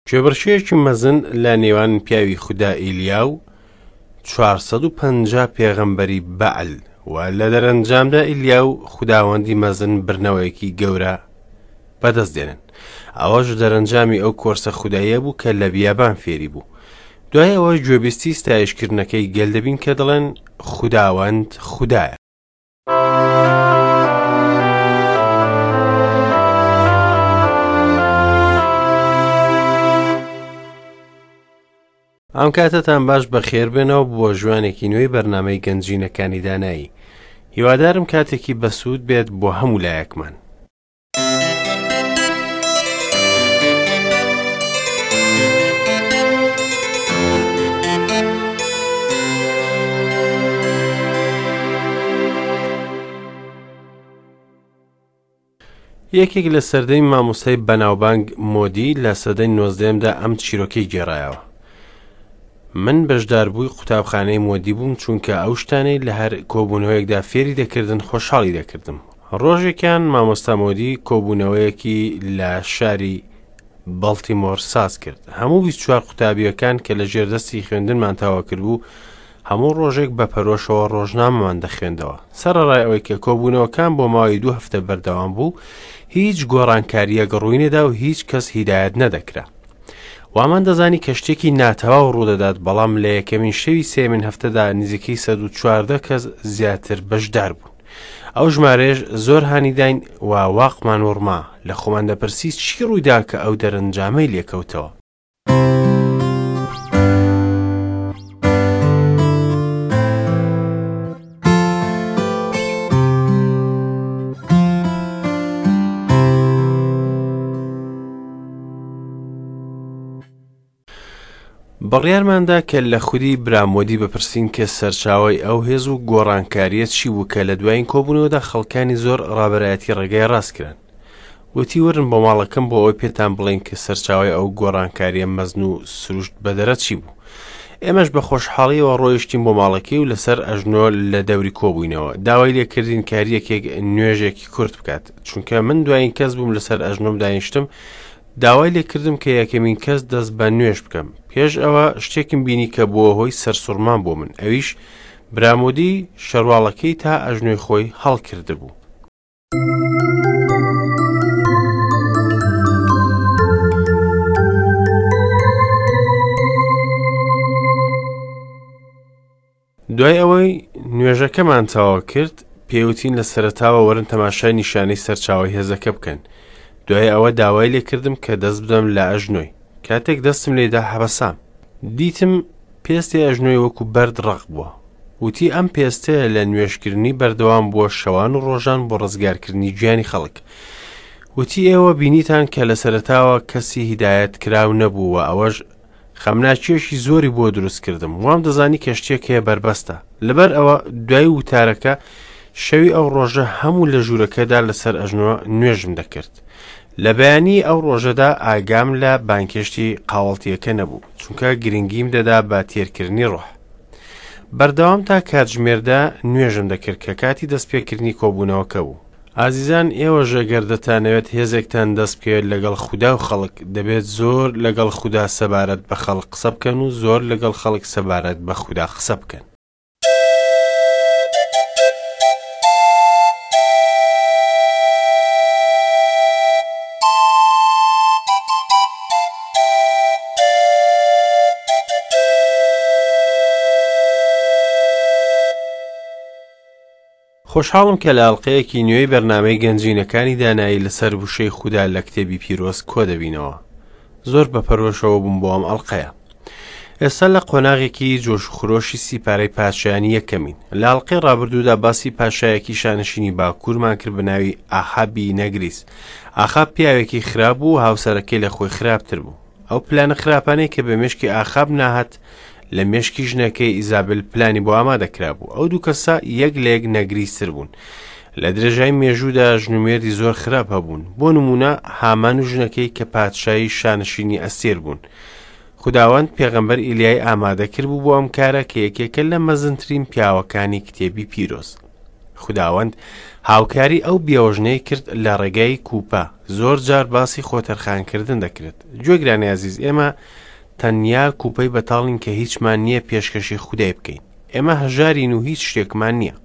کێبڕکێیەکی مەزن لە نێوان پیاوی خودا ئیلیا و 450 پێغەمبەری بەعل و لە دەرەنجامدا ئیلیا و خوداوەندی مەزن بردنەوەیەکی گەورە بەدەست دێنن. ئەوەش دەرەنجامی ئەو کۆرسە خوداییە بوو کە لە بیابان فێری بوو. دوای ئەوە گوێبیستی ستایشکردنەکەی گەل دەبین کە دەڵێن خوداوەند خودایە. ئەم کاتەتان باش بەخێربێنەوە بۆ ژوانێکی نوێی بەرنامەی گەنجینەکانی دانایی. هیوادارم کاتێکی بەسوود بێت بۆ هەموو لایەکمان. یەکێک لە سەردەمی مامۆستای بەناوبانگ مۆدی لە سەدەی نۆزدەیەمدا ئەم چیرۆکەی گێڕایەوە. من بەشداربووی قوتابخانەی مۆدی بووم چونکە ئەو شتانەی لە هەر کۆبوونەوەیەکدا فێری دەکردن خۆشحاڵی دەکردم. ڕۆژێکیان مامۆستا مۆدی کۆبوونەوەیەکی لە شاری بەڵتیمۆر ساز کرد. هەموو 24 قوتابییەکان کە لە ژێردەستی خوێندنمان تەواو کردبوو، هەموو ڕۆژێک بە پەرۆشەوە ڕۆژنامەمان دەخوێندەوە. سەرەڕای ئەوەی کە کۆبوونەوەکان بۆ ماوەی دوو هەفتە بەردەوام بوو، هیچ گۆڕانکارییەک ڕووی نەدا و هیچ کەس هیدایەت نەدەکرا. وامان دەزانی کە شتێکی ناتەواو ڕوودەدات، بەڵام لە یەکەمین شەوی سێیەمین هەفتەدا نزیکەی 114 کەس زیاتر بەشدار بوون. ئەو ژمارەیەش زۆر هانی داین و واقمان وڕما، لە خۆمان دەپرسی چی ڕوویدا کە ئەو دەرەنجامەی لێکەوتەوە. بڕیارماندا کە لە خودی برامۆدی بپرسین کە سەرچاوەی ئەو هێز و گۆڕانکارییە چی بوو کە لە دوایین کۆبوونەوەدا خەڵکانی زۆر ڕابەرایەتی ڕێگای ڕاست کران. وتی وەرن بۆ ماڵەکەم بۆ ئەوەی پێتان بڵێین کە سەرچاوەی ئەو گۆڕانکارییە مەزن و سروشت بەدەرە چی بوو. ئێمەش بە خۆشحاڵیەوە ڕۆیشتین بۆ ماڵەکەی و لەسەر ئەژنۆ لە دەوری کۆبووینەوە. داوای لێکردین کە هەر یەکێک نوێژێکی کورت بکات. چونکە من دوایین کەس بووم لەسەر ئەژنۆم دانیشتم، داوای لێکردم کە یەکەمین کەس دەست بە نوێژ بکەم. پێش ئەوە شتێکم بینی کە بووە هۆی سەرسوڕمان بۆ من، ئەویش برامۆدی شەرواڵەکەی تا ئەژنۆی خۆی هەڵکردبوو. دوای ئەوەی نوێژەکەمان تەواو کرد، پێیوتین لە سەرەتاوە وەرن تەماشای نیشانەی سەرچاوەی هێزەکە بکەن. دوای ئەوە داوای لێکردم کە دەست بدەم لە ئەژنۆی. کاتێک دەستم لێدا حەبەسام. دیتم پێستی ئەژنۆی وەکو بەرد ڕەق بووە. وتی ئەم پێستەیە لە نوێژکردنی بەردەوام بووە شەوان و ڕۆژان بۆ ڕزگارکردنی گیانی خەڵک. وتی ئێوە بینیتان کە لە سەرەتاوە کەسی هیدایەت کراو نەبوو و ئەوەش خەمناکییەکی زۆری بۆ دروست کردم. وام دەزانی کە شتێک هەیە بەربەستە. لەبەر ئەوە دوای وتارەکە شەوی ئەو ڕۆژە هەموو لە ژوورەکەدا لەسەر ئەژنۆ نوێژم دەکرد. لە بەیانی ئەو ڕۆژەدا ئاگام لە بانگهێشتی قاوەڵتییەکە نەبوو، چونکە گرنگیم دەدا بە تێرکردنی ڕۆح. بەردەوام تا کاتژمێردا نوێژم دەکرد کە کاتی دەستپێکردنی کۆبوونەوەکە بوو. ئازیزان ئێوەش ئەگەر دەتانەوێت هێزێکتان دەست بکەوێت لەگەڵ خودا و خەڵک، دەبێت زۆر لەگەڵ خودا سەبارەت بە خەڵک قسە بکەن و زۆر لەگەڵ خەڵک سەبارەت بە خودا قسە بکەن. خۆشحاڵم کە لە ئەڵقەیەکی نوێی بەرنامەی گەنجینەکانی دانایی لەسەر وشەی خودا لە کتێبی پیرۆز کۆدەبینەوە. زۆر بە پەرۆشەوە بووم بۆ ئەم ئەڵقەیە. ئێستا لە قۆناغێکی جۆش و خرۆشی سیپارەی پادشایانی یەکەمین. لە ئەڵقەی ڕابردوودا باسی پاشایەکی شانشینی باکوورمان کرد بە ناوی ئاخابی نەگریس. ئاخاب پیاوێکی خراپ بوو و هاوسەرەکەی لە خۆی خراپتر بوو. ئەو پلانە خراپانەی کە بە مێشکی ئاخاب ناهات لە مێشکی ژنەکەی ئیزابل پلانی بۆ ئامادە کرابوو. ئەو دوو کەسە یەک لە یەک نەگریستر بوون. لە درێژای مێژوودا ژن و مێردی زۆر خراپ هەبوون. بۆ نموونە هامان و ژنەکەی کە پادشای شانشینی ئەستێر بوون. خوداوەند پێغەمبەر ئیلیای ئامادە کردبوو بۆ ئەم کارە کە یەکێکە لە مەزنترین پیاوەکانی کتێبی پیرۆز. خوداوەند هاوکاری ئەو بێوەژنەی کرد لە ڕێگای کوپە. زۆر جار باسی خۆتەرخانکردن دەکرێت. گوێگرانی ئازیز، ئێمە تەنیا کوپەی بەتاڵین کە هیچمان نییە پێشکەشی خودای بکەین. ئێمە هەژارین و هیچ شتێکمان نییە.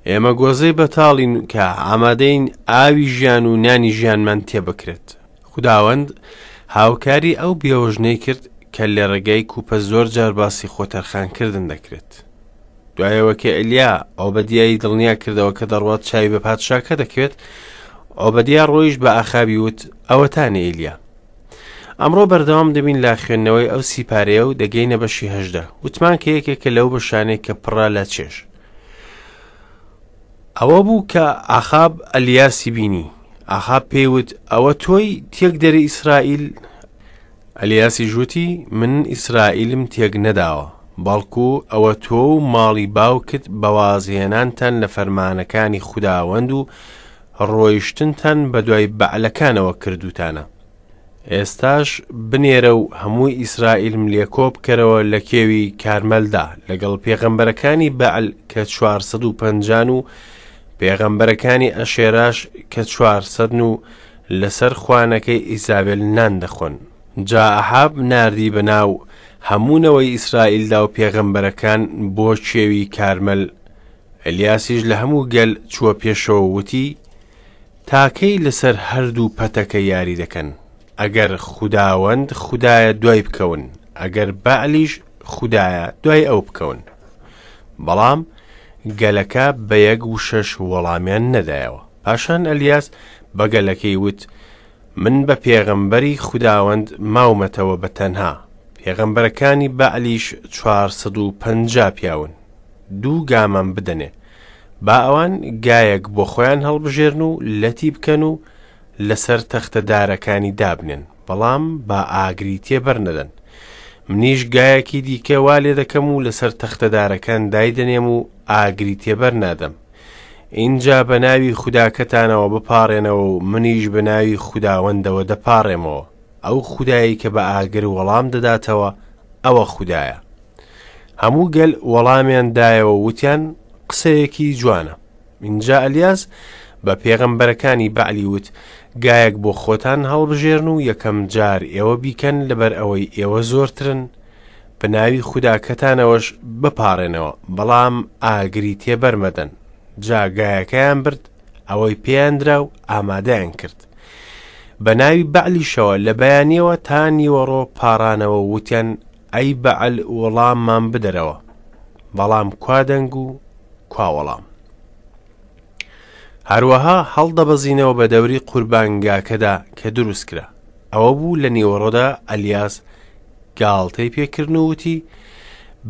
ئێمە گۆزەی بەتاڵین کە ئامادەین ئاوی ژیان و نانی ژیانمان تێبکرێت. خوداوەند هاوکاری ئەو بێوەژنەی کرد کە لە ڕێگای کوپە زۆر جار باسی خۆتەرخانکردن دەکرێت. دوایەوە کە ئەلیا ئۆبەدیای دڵنیا کردەوە کە دەڕوات چاوی بە پادشاکە دەکەوێت، ئۆبەدیا ڕۆیشت بە ئاخابی وت، ئەوەتانێ ئیلیا. ئەمڕۆ بەردەوام دەبین لە خوێندنەوەی ئەو سیپارەیە و دەگەینە بەشی 18. وتمان کە یەکێکە لەو بەشانەی کە پڕە لە چێژ. ئەوە بوو کە ئاخاب ئەلیاسی بینی. ئاخاب پێی وت، ئەوە تۆی تێکدەری ئیسرائیل؟ ئەلیاسیش وتی، من ئیسرائیلم تێک نەداوە، بەڵکو ئەوە تۆ و ماڵی باوکت بە وازهێنانتان لە فەرمانەکانی خوداوەند و ڕۆیشتنتان بەدوای بەعلەکانەوە کردووتانە. ئێستاش بنێرە و هەموو ئیسرائیلم لێ کۆبکەرەوە لە کێوی کارمەلدا لەگەڵ پێغەمبەرەکانی بەعل کە 450 و پێغەمبەرەکانی ئەشێراش کە 400 و لەسەر خوانەکەی ئیزابێل نان دەخۆن. جا ئەحاب ناردی بە ناو هەموو نەوەی ئیسرائیلدا و پێغەمبەرەکان بۆ کێوی کارمەل. ئەلیاسیش لە هەموو گەل چووە پێشەوە و وتی، تا کەی لەسەر هەردوو پەتەکە یاری دەکەن؟ ئەگەر خوداوەند خودایە دوای بکەون، ئەگەر بەعلیش خودایە دوای ئەو بکەون. بەڵام گەلەکە بە یەک وشەش وەڵامیان نەدایەوە. پاشان ئەلیاس بە گەلەکەی وت، من بە پێغەمبەری خوداوەند ماومەتەوە بە تەنها، پێغەمبەرەکانی بەعلیش 450 پیاون. دوو گامان بدەنێ. با ئەوان گایەک بۆ خۆیان هەڵبژێرن و لەتی بکەن و لەسەر تەختە دارەکانی دابنێن، بەڵام با ئاگری تێبەر نەدەن. منیش گایەکی دیکە وا لێ دەکەم و لەسەر تەختە دارەکان دایدەنێم و ئاگری تێبەر نادەم. ئینجا بە ناوی خوداکەتانەوە بپاڕێنەوە و منیش بە ناوی خوداوەندەوە دەپاڕێمەوە. ئەو خودایەی کە بە ئاگر وەڵام دەداتەوە، ئەوە خودایە. هەموو گەل وەڵامیان دایەوە وتیان قسەیەکی جوانە. ئینجا ئەلیاس بە پێغەمبەرەکانی بەعلی وت، گایەک بۆ خۆتان هەڵبژێرن و یەکەم جار ئێوە بیکەن لەبەر ئەوەی ئێوە زۆرترن، بە ناوی خوداکەتانەوەش بپاڕێنەوە، بەڵام ئاگری تێبەر مەدەن. جا گایەکەیان برد، ئەوەی پێیان درا و ئامادەیان کرد. بە ناوی بەعلیشەوە لە بەیانیەوە تا نیوەڕۆ پاڕانەوە و وتیان ئەی بەعل وەڵاممان بدەرەوە. بەڵام کوا دەنگ و کوا وەڵام؟ هەروەها هەڵدەبەزینەوە بە دەوری قوربانگاکەدا کە دروست کرا. ئەوە بوو لە نیوەڕۆدا ئەلیاس گاڵتەی پێکردن و وتی،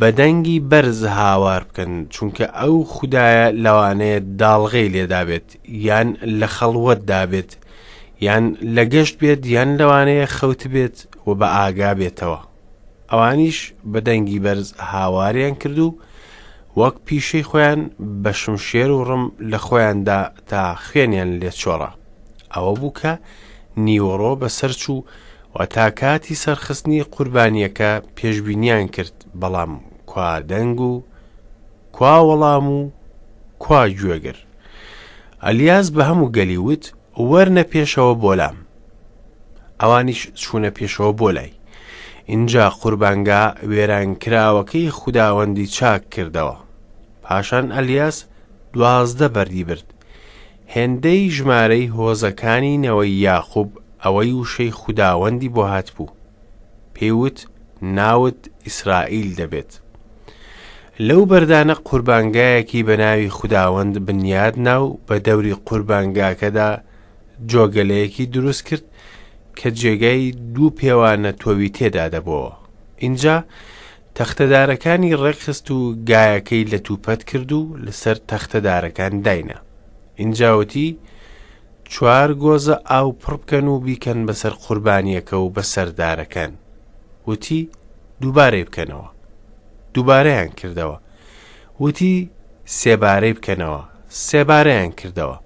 بە دەنگی بەرز هاوار بکەن، چونکە ئەو خودایە لەوانەیە داڵغەی لێدابێت، یان لە خەڵوەتدا بێت، یان لە گەشت بێت، یان لەوانەیە خەوتبێت و بە ئاگا بێتەوە. ئەوانیش بە دەنگی بەرز هاواریان کرد و وەک پیشەی خۆیان بە شمشێر و ڕم لە خۆیاندا تا خوێنیان لێ چۆڕا. ئەوە بوو کە نیوەڕۆ بەسەر چوو و تا کاتی سەرخستنی قوربانییەکە پێشبینیان کرد، بەڵام کوا دەنگ و کوا وەڵام و کوا گوێگر؟ ئەلیاس بە هەموو گەلی وت، وەرنە پێشەوە بۆ لام. ئەوانیش چوونە پێشەوە بۆ لای. ئینجا قوربانگا وێرانکراوەکەی خوداوەندی چاک کردەوە. پاشان ئەلیاس 12 بەردی برد، هێندەی ژمارەی هۆزەکانی نەوەی یاقوب ئەوەی وشەی خوداوەندی بۆ هاتبوو. پێی وت، ناوت ئیسرائیل دەبێت. لەو بەردانە قوربانگایەکی بە ناوی خوداوەند بنیاد نا و بە دەوری قوربانگاکەدا جۆگەلەیەکی دروست کرد کە جێگای دوو پێوانە تۆوی تێدا دەبۆوە. ئینجا تەختەدارەکانی ڕێکخست و گایەکەی لەتوپەت کرد و لەسەر تەختەدارەکان داینا. ئینجا وتی، چوار گۆزە ئاو پڕ بکەن و بیکەن بەسەر قوربانییەکە و بەسەر دارەکان. وتی، دووبارەی بکەنەوە. دووبارەیان کردەوە. وتی، سێبارەی بکەنەوە. سێبارەیان کردەوە.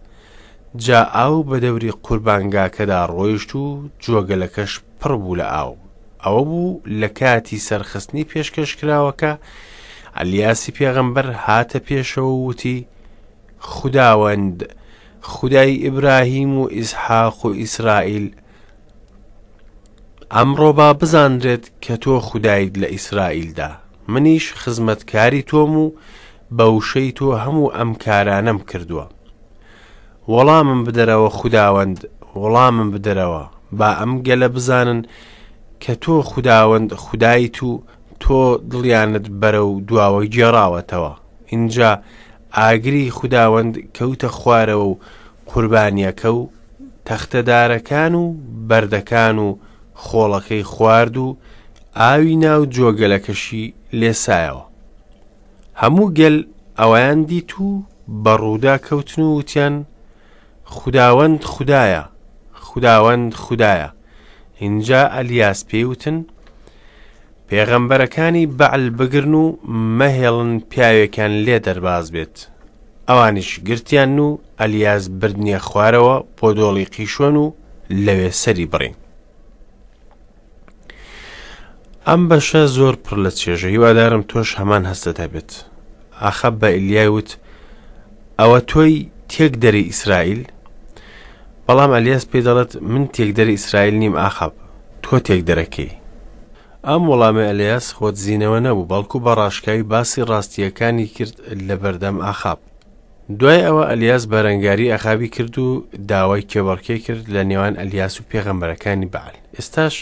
جا ئاو بە دەوری قوربانگاکەدا ڕۆیشت و جۆگەلەکەش پڕ بوو لە ئاو. ئەوە بوو لە کاتی سەرخستنی پێشکەشکراوەکە، ئەلیاسی پێغەمبەر هاتە پێشەوە و وتی، خوداوەند، خودای ئیبراهیم و ئیسحاق و ئیسرائیل، ئەمڕۆ با بزانرێت کە تۆ خودایت لە ئیسرائیلدا، منیش خزمەتکاری تۆم و بە وشەی تۆ هەموو ئەم کارانەم کردووە. وەڵامم بدەرەوە خوداوەند، وەڵامم بدەرەوە، با ئەم گەلە بزانن کە تۆ خوداوەند خودایت و تۆ دڵیانت بەرەو دواوە گێڕاوەتەوە. ئینجا ئاگری خوداوەند کەوتە خوارەوە و قوربانییەکە و تەختەدارەکان و بەردەکان و خۆڵەکەی خوارد و ئاوی ناو جۆگەلەکەشی لێسایەوە. هەموو گەل ئەوەیان دیت و بە ڕوودا کەوتن و وتیان، خوداوەند خودایە، خوداوەند خودایە. ئینجا ئەلیاس پێی وتن، پێغەمبەرەکانی بەعل بگرن و مەهێڵن پیاوێکیان لێ دەرباز بێت. ئەوانیش گرتیان و ئەلیاس بردنیە خوارەوە بۆ دۆڵی قیشۆن و لەوێ سەری بڕین. ئەم بەشە زۆر پڕ لە چێژە هیوادارم تۆش هەمان هەستت هەبێت. ئاخاب بە ئیلیای وت ئەوە تۆی تێکدەری ئیسرائیل؟ بەڵام ئەلیاس پێی دەڵێت من تێکدەری ئیسرائیل نیم ئاخاب، تۆ تێکدەرەکەی. ئەم وەڵامەی ئەلیاس خۆدزینەوە نەبوو، بەڵکو بە ڕاشکاوی باسی ڕاستییەکانی کرد لە بەردەم ئاخاب. دوای ئەوە ئەلیاس بەرەنگاری ئەخابی کرد و داوای کێبەڕکێ کرد لە نێوان ئەلیاس و پێغەمبەرەکانی بەعل. ئێستاش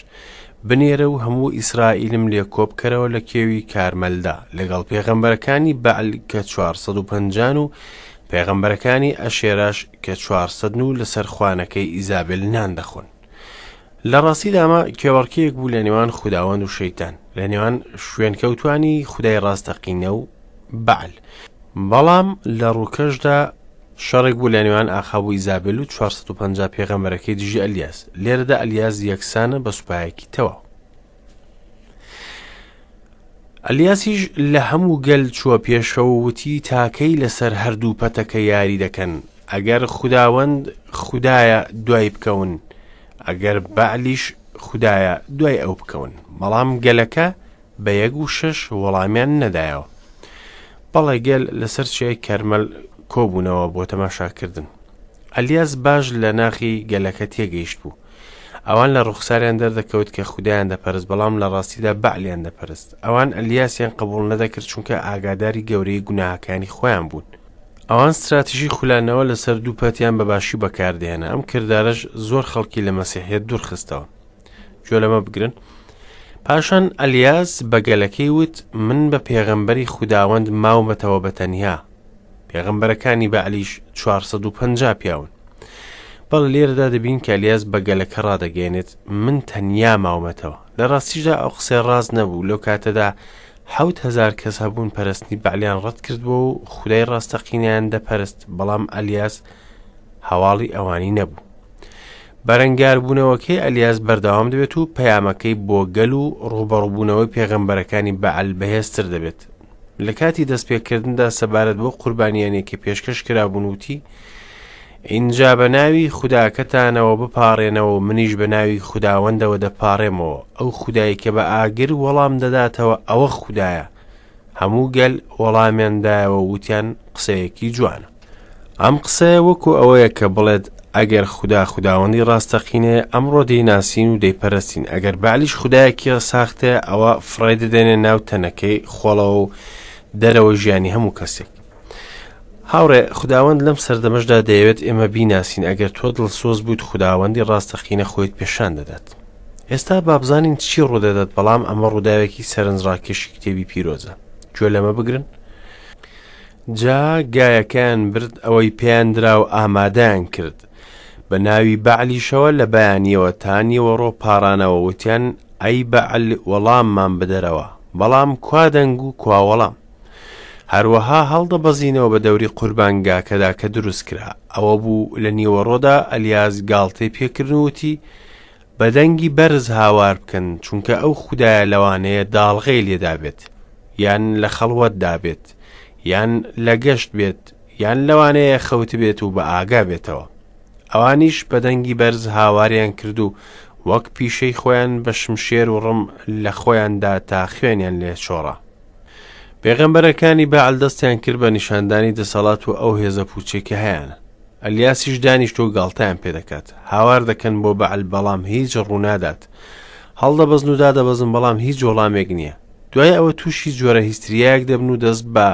بنێرە و هەموو ئیسرائیلم لێ کۆبکەرەوە لە کێوی کارمەلدا لەگەڵ پێغەمبەرەکانی بەعل کە 450 و پێغەمبەرەکانی ئەشێراش کە 400 و لەسەر خوانەکەی ئیزابێل نان دەخۆن. لە ڕاستیدا ئەمە کێبەڕکێیەک بوو لە نێوان خوداوەند و شەیتان، لە نێوان شوێنکەوتوانی خودای ڕاستەقینە و بەعل. بەڵام لە ڕووکەشدا شەڕێک بوو لە نێوان ئاخاب و ئیزابێل و 450 پێغەمبەرەکەی دژی ئەلیاس. لێرەدا ئەلیاس یەکسانە بە سوپایەکی تەواو. ئەلیاسیش لە هەموو گەل چووە پێشەوە و وتی تاکەی لەسەر هەردوو پەتەکە یاری دەکەن ئەگەر خوداوەند خودایە دوای بکەون ئەگەر بەعلیش خودایە دوای ئەو بکەون بەڵام گەلەکە بە یەک و شەش وەڵامیان نەدایەوە بەڵێ گەل لەسەر چیای کەرمەل کۆبوونەوە بۆ تەماشاکردن ئەلیاس باش لە ناخی گەلەکە تێگەیشت بوو ئەوان لە ڕوخساریان دەردەکەوت کە خودایان دەپەرست بەڵام لە ڕاستیدا بەعلیان دەپەرست ئەوان ئەلیاسیان قبوڵ نەدەکرد چونکە ئاگاداری گەورەی گوناهەکانی خۆیان بوون ئەوان ستراتیژی خولانەوە لەسەر دوو پەتیان بە باشی بەکاردێنە ئەم کردارەش زۆر خەڵکی لە مەسیحیت دوورخستەوە گوێ لەمە بگرن پاشان ئەلیاس بە گەلەکەی وت من بە پێغەمبەری خوداوەند ماومەتەوە بە تەنیا پێغەمبەرەکانی بەعلیش 450 پیاون بەڵێ لێرەدا دەبین کە ئەلیاس بە گەلەکە ڕادەگەیەنێت من تەنیا ماومەتەوە لە ڕاستیشدا ئەو قسەی ڕاست نەبوو لەو کاتەدا 7000 کەس هەبوون پەرستنی بەعلیان ڕەت کردبووە و خودای ڕاستەقینەیان دەپەرست بەڵام ئەلیاس هەواڵی ئەوانی نەبوو بەرەنگاربوونەوەکەی ئەلیاس بەردەوام دەبێت و پەیامەکەی بۆ گەل و ڕووبەڕووبوونەوەی پێغەمبەرەکانی بەعل بەهێزتر دەبێت. لە کاتی دەستپێکردندا سەبارەت بۆ قوربانیانێک کە پێشکەش کرابوون وتی، ئینجا بە ناوی خوداکەتانەوە بپاڕێنەوە و منیش بە ناوی خوداوەندەوە دەپاڕێمەوە، ئەو خودای کە بە ئاگر وەڵام دەداتەوە ئەوە خودایە. هەموو گەل وەڵامیان دایەوە و وتیان قسەیەکی جوانە. ئەم قسەیە وەکو ئەوەیە کە بڵێت ئەگەر خودا خوداوەندی ڕاستەقینەیە ئەمڕۆ دەیناسین و دەیپەرستین ئەگەر بەعلیش خودایەکی ساختەیە ئەوە فڕێ دەدەینە ناو تەنەکەی خۆڵەوە و دەرەوە ژیانی هەموو کەسێک هاوڕێ خوداوەند لەم سەردەمەشدا دەیەوێت ئێمە بیناسین ئەگەر تۆ دڵسۆز بوویت خوداوەندی ڕاستەقینە خۆیت پێشان دەدات ئێستا بابزانین چی ڕوودەدات بەڵام ئەمە ڕووداوێکی سەرنجڕاکێشی کتێبی پیرۆزە گوێ لەمە بگرن جا گایەکەیان برد ئەوەی پێیان درا و ئامادەیان کرد. بە ناوی بەعلیشەوە لە بەیانییەوە تا نیوەڕۆ پاڕانەوە وتیان، ئەی بەعل وەڵاممان بدەرەوە. بەڵام کوا دەنگ و کوا وەڵام؟ هەروەها هەڵدەبەزینەوە بە دەوری قوربانگاکەدا کە دروست کرا. ئەوە بوو لە نیوەڕۆدا ئەلیاس گاڵتەی پێکردن و وتی، بە دەنگی بەرز هاوار بکەن، چونکە ئەو خودایە لەوانەیە داڵغەی لێدابێت، یان لە خەڵوەتدا بێت، یان لە گەشت بێت، یان لەوانەیە خەوتبێت و بە ئاگا بێتەوە. ئەوانیش بە دەنگی بەرز هاواریان کرد و وەک پیشەی خۆیان بە شمشێر و ڕم لە خۆیان دا تا خوێنیان لێ چۆڕا. پێغەمبەرەکانی بەعل دەستیان کرد بە نیشاندانی دەسەڵات و ئەو هێزە پوچەی کە هەیانە. ئەلیاسیش دانیشتوە و گاڵتەیان پێدەکات. هاوار دەکەن بۆ بەعل بەڵام هیچ ڕوونادات. هەڵدەبەزن و دادەبەزن بەڵام هیچ وەڵامێک نییە. دوای ئەوە تووشی جۆرە هیستریایەک دەبن و دەست بە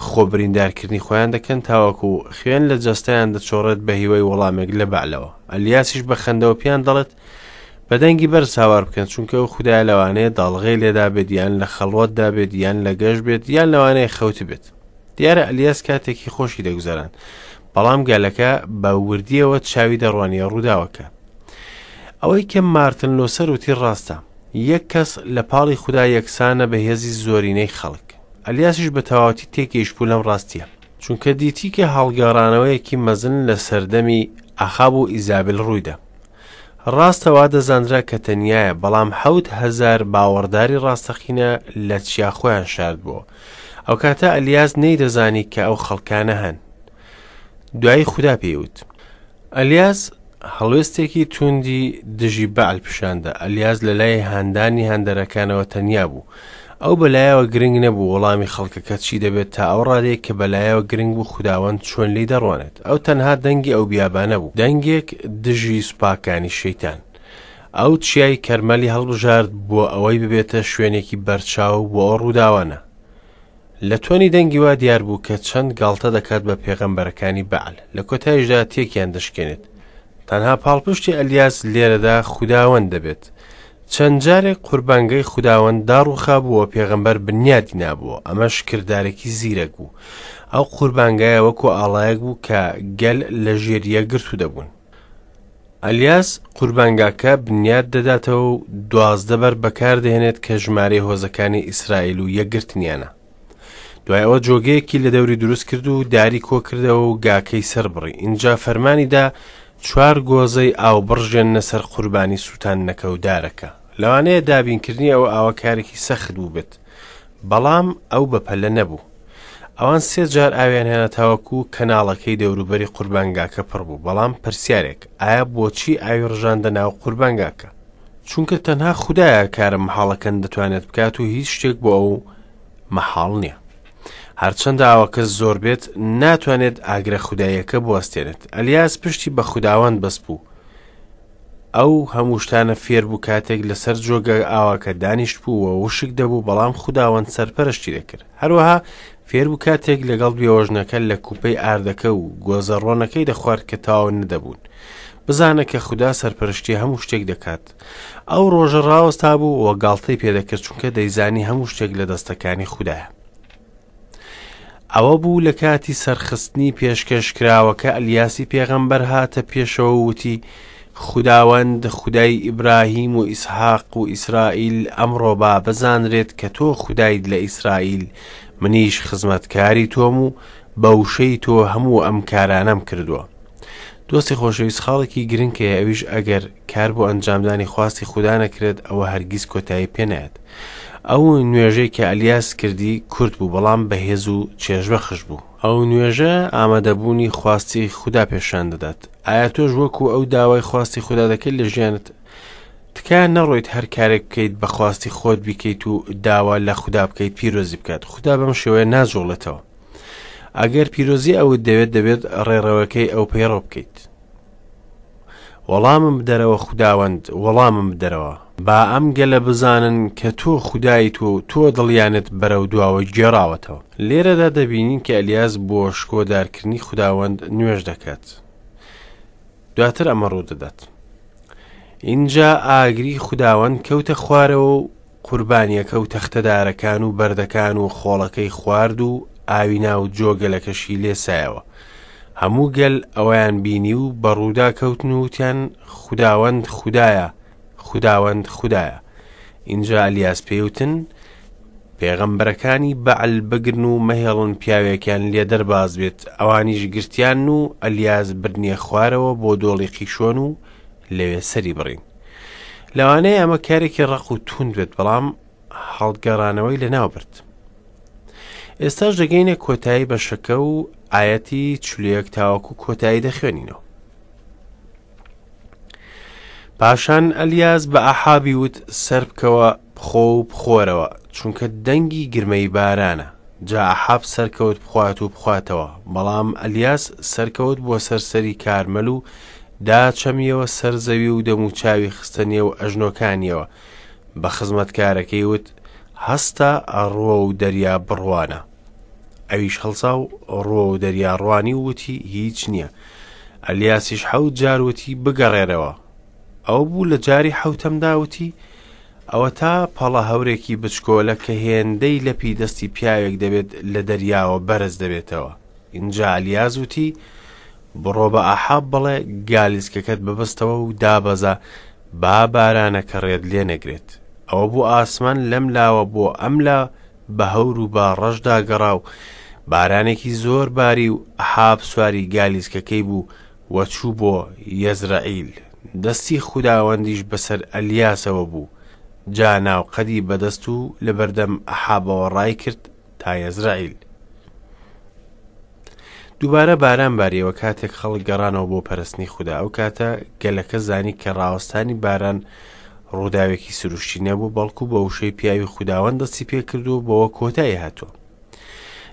خۆ بریندارکردنی خۆیان دەکەن تاوەکو خوێن لە جەستەیان دەچۆڕێت بە هیوای وەڵامێک لە بەعلەوە. ئەلیاسیش بە خەندەوە پێیان دەڵێت بە دەنگی بەرز هاوار بکەن چونکە ئەو خودایە لەوانەیە داڵغەی لێدابێت یان لە خەڵوەتدا بێت یان لە گەشت بێت یان لەوانەیە خەوتبێت. دیارە ئەلیاس کاتێکی خۆشی دەگوزەراند، بەڵام گەلەکە بە وردیەوە چاوی دەڕوانیە ڕووداوەکە. ئەوەی کە مارتن لۆسەر وتی ڕاستە، یەک کەس لە پاڵی خودا یەکسانە بە هێزی زۆرینەی خەڵک. ئەلیاسیش بە تەواوەتی تێگەیشتبوو لەم ڕاستیە، چونکە دیتی کە هەڵگەڕانەوەیەکی مەزن لە سەردەمی ئەخاب و ئیزابل ڕوویدا. ڕاستە وا دەزانرا کە تەنیایە، بەڵام 7000 باوەڕداری ڕاستەقینە لە چیا خۆیان شاردبووەوە. ئەوکاتە ئەلیاس نەیدەزانی کە ئەو خەڵکانە هەن. دوایی خودا پێی وت. ئەلیاس هەڵوێستێکی تووندی دژی بەعل پیشاندا. ئەلیاس لە لای هاندانی هاندەرەکانەوە تەنیا بوو. ئەو بەلایەوە گرنگ نەبوو وەڵامی خەڵکەکە چی دەبێت تا ئەو ڕادەیە کە بەلایەوە گرنگ بوو خوداوەند چۆن لێی دەڕوانێت. ئەو تەنها دەنگی ئەو بیابانە بوو، دەنگێک دژی سوپاکانی شەیتان. ئەو چیای کەرمەلی هەڵبژارد بۆ ئەوەی ببێتە شوێنێکی بەرچاو بۆ ئەو ڕووداوانە. لە تۆنی دەنگی وا دیار بوو کە چەند گاڵتە دەکات بە پێغەمبەرەکانی بەعل، لە کۆتاییشدا تێکیان دەشکێنێت. تەنها پاڵپشتی ئەلیاس لێرەدا خوداوەند دەبێت. چەند جارێک قوربانگەی خوداوەند داڕووخابوو و پێغەمبەر بنیادی نابووە، ئەمەش کردارێکی زیرەک بوو. ئەو قوربانگایە وەکو ئاڵایەک بوو کە گەل لە ژێر یەکگرتوو دەبوون. ئەلیاس قوربانگاکە بنیاد دەداتەوە و 12 بەر بەکاردەهێنێت کە ژمارەی هۆزەکانی ئیسرائیل و یەکگرتنیانە. دوای ئەوە جۆگەیەکی لە دەوری دروست کرد و داری کۆکردەوە و گاکەی سەربڕی. ئینجا فەرمانی دا چوار گۆزەی ئاو بڕژێننە سەر قوربانی سووتاندنەکە و دارەکە. لەوانەیە دابینکردنی ئەو ئاوە کارێکی سەخت بووبێت، بەڵام ئەو بەپەلە نەبوو. ئەوان سێ جار ئاویان هێنا تاوەکو کەناڵەکەی دەوروبەری قوربانگاکە پڕ بوو. بەڵام پرسیارێک، ئایا بۆچی ئاوی ڕژاندە ناو قوربانگاکە؟ چونکە تەنها خودایە کارە مەحاڵەکان دەتوانێت بکات و هیچ شتێک بۆ ئەو مەحاڵ نییە. هەرچەندە ئاوەکە زۆر بێت ناتوانێت ئاگرە خوداییەکە بوەستێنێت. ئەلیاس پشتی بە خوداوەند بەستبوو. ئەو هەموو شتانە فێر بوو کاتێک لەسەر جۆگە ئاوەکە دانیشت بوو و وشک دەبوو بەڵام خوداوەند سەرپەرشتی دەکرد. هەروەها فێر بوو کاتێک لەگەڵ بێوەژنەکە لە کوپەی ئاردەکە و گۆزە ڕۆنەکەی دەخوارد کە تەواو نەدەبوون. بزانە کە خودا سەرپەرشتی هەموو شتێک دەکات. ئەو ڕۆژە ڕاوەستا بوو و گاڵتەی پێدەکرد چونکە دەیزانی هەموو شتێک لە دەستەکانی خودایە. ئەوە بوو لە کاتی سەرخستنی پێشکەشکراوەکە ئەلیاسی پێغەمبەر هاتە پێشەوە و وتی، خوداوەند خودای ئیبراهیم و ئیسحاق و ئیسرائیل ئەمڕۆ با بزانرێت کە تۆ خودایت لە ئیسرائیل، منیش خزمەتکاری تۆم و بە وشەی تۆ هەموو ئەم کارانەم کردووە. دۆستی خۆشەویست خاڵێکی گرنگ هەیە ئەویش ئەگەر کار بۆ ئەنجامدانی خواستی خودا نەکرێت ئەوە هەرگیز کۆتایی پێ نایەت. ئەو نوێژەی کە ئەلیاس کردی کورت بوو بەڵام بەهێز و چێژبەخش بوو. ئەو نوێژە ئامادەبوونی خواستی خودا پێشان دەدات. ئایا تۆش وەکو ئەو داوای خواستی خودا دەکەیت لە ژیانت؟ تکایە نەڕۆیت هەر کارێک بکەیت بە خواستی خۆت بیکەیت و داوا لە خودا بکەیت پیرۆزی بکات. خودا بەم شێوەیە ناجوڵێتەوە. ئەگەر پیرۆزی ئەوت دەوێت دەبێت ڕێڕەوەکەی ئەو پەیڕەو بکەیت. وەڵامم بدەرەوە خوداوەند، وەڵامم بدەرەوە. با ئەم گەلە بزانن کە تۆ خودایت و تۆ دڵیانت بەرەو دواوە گێڕاوەتەوە. لێرەدا دەبینین کە ئەلیاس بۆ شکۆدارکردنی خوداوەند نوێژ دەکات. دواتر ئەمە ڕوودەدات. ئینجا ئاگری خوداوەند کەوتە خوارەوە و قوربانییەکە و تەختەدارەکان و بەردەکان و خۆڵەکەی خوارد و ئاوی ناو جۆگەلەکەشی لێسایەوە. هەموو گەل ئەوەیان بینی و بە ڕوودا کەوتن و وتیان، خوداوەند خودایە، خوداوەند خودایە. ئینجا ئەلیاس پێی وتن، پێغەمبەرەکانی بەعل بگرن و مەهێڵن پیاوێکیان لێ دەرباز بێت. ئەوانیش گرتیان و ئەلیاس بردنیە خوارەوە بۆ دۆڵی قیشۆن و لەوێ سەری بڕین. لەوانەیە ئەمە کارێکی ڕەق و توند بێت بەڵام هەڵگەڕانەوەی لەناو برد. ئێستاش دەگەینە کۆتایی بەشەکە و ئایەتی 41 تاوەکو کۆتایی دەخوێنینەوە. پاشان ئەلیاس بە ئەحابی وت سەر بکەوە بخۆ و بخۆرەوە، چونکە دەنگی گرمەی بارانە. جا ئەحاب سەرکەوت بخوات و بخواتەوە، بەڵام ئەلیاس سەرکەوت بۆ سەر سەری کارمەل و داچەمیەوە سەر زەوی و دەموچاوی خستە نێو ئەژنۆکانیەوە، بە خزمەتکارەکەی وت، هەستە ڕووەو دەریا بڕوانە. ئەویش هەڵسا و ڕووەو دەریا ڕوانی و وتی، هیچ نییە. ئەلیاسیش حەوت جار وتی، بگەڕێرەوە. ئەوە بوو لە جاری حەوتەمدا وتی، ئەوەتا پەڵە هەورێکی بچکۆلە کە هێندەی لەپی دەستی پیاوێک دەبێت لە دەریاوە بەرز دەبێتەوە. ئینجا ئەلیاس وتی، بڕۆ بە ئاحاب بڵێ گالیسکەکەت ببەستەوە و دابەزە با بارانەکە ڕێت لێ نەگرێت. ئەوە بوو ئاسمان لەم لاوە بۆ ئەم لا بە هەور و با ڕەش داگەڕا و بارانێکی زۆر باری و ئەحاب سواری گالیسکەکەی بوو و چوو بۆ یەزرەعیل. دەستی خوداوەندیش بەسەر ئەلیاسەوە بوو، جا ناوقەدی بەدەست و لەبەردەم ئەحابەوە ڕایکرد تا یەزرەعیل. دووبارە باران باریەوە کاتێک خەڵک گەڕانەوە بۆ پەرستنی خودا. ئەو کاتە گەلەکە زانی کە ڕاوەستانی باران ڕووداوێکی سروشتی نەبوو، بەڵکو بە وشەی پیاوی خوداوەند دەستی پێکردووە و بەوە کۆتایی هاتووە.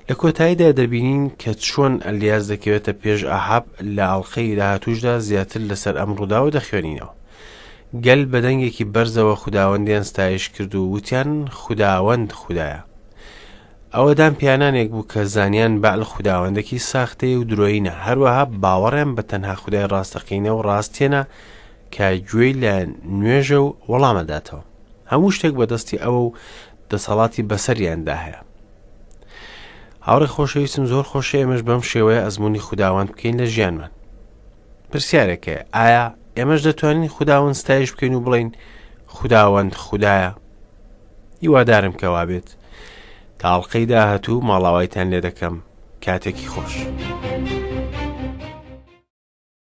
لە کۆتاییدا دەبینین کە چۆن ئەلیاس دەکەوێتە پێش ئاحاب. لە ئەڵقەی داهاتووشدا زیاتر لەسەر ئەم ڕووداوە دەخوێنینەوە. گەل بە دەنگێکی بەرزەوە خوداوەندیان ستایش کرد و وتیان خوداوەند خودایە. ئەوە دان پیانانێک بوو کە زانیان بەعل خوداوەندێکی ساختەیە و درۆیینە، هەروەها باوەڕیان بە تەنها خودای ڕاستەقینە و ڕاست هێنا کە گوێی لە نوێژە و وەڵامەداتەوە. هەموو شتێک بەدەستی ئەوە و دەسەڵاتی بەسەریاندا هەیە. هاوڕێ خۆشەویستم زۆر خۆشە ئێمەش بەم شێوەیە ئەزمموی خوداوەند بکەین لە ژیانمان. پرسیارێک هەیە، ئایا ئێمەش دەتوانین خوداوەند ستایش بکەین و بڵێین خوداوەند خودایە؟ هیوادارم کە وابێت. تا ئەڵقەی داهاتوو ماڵاوایتان لێ دەکەم. کاتێکی خۆش.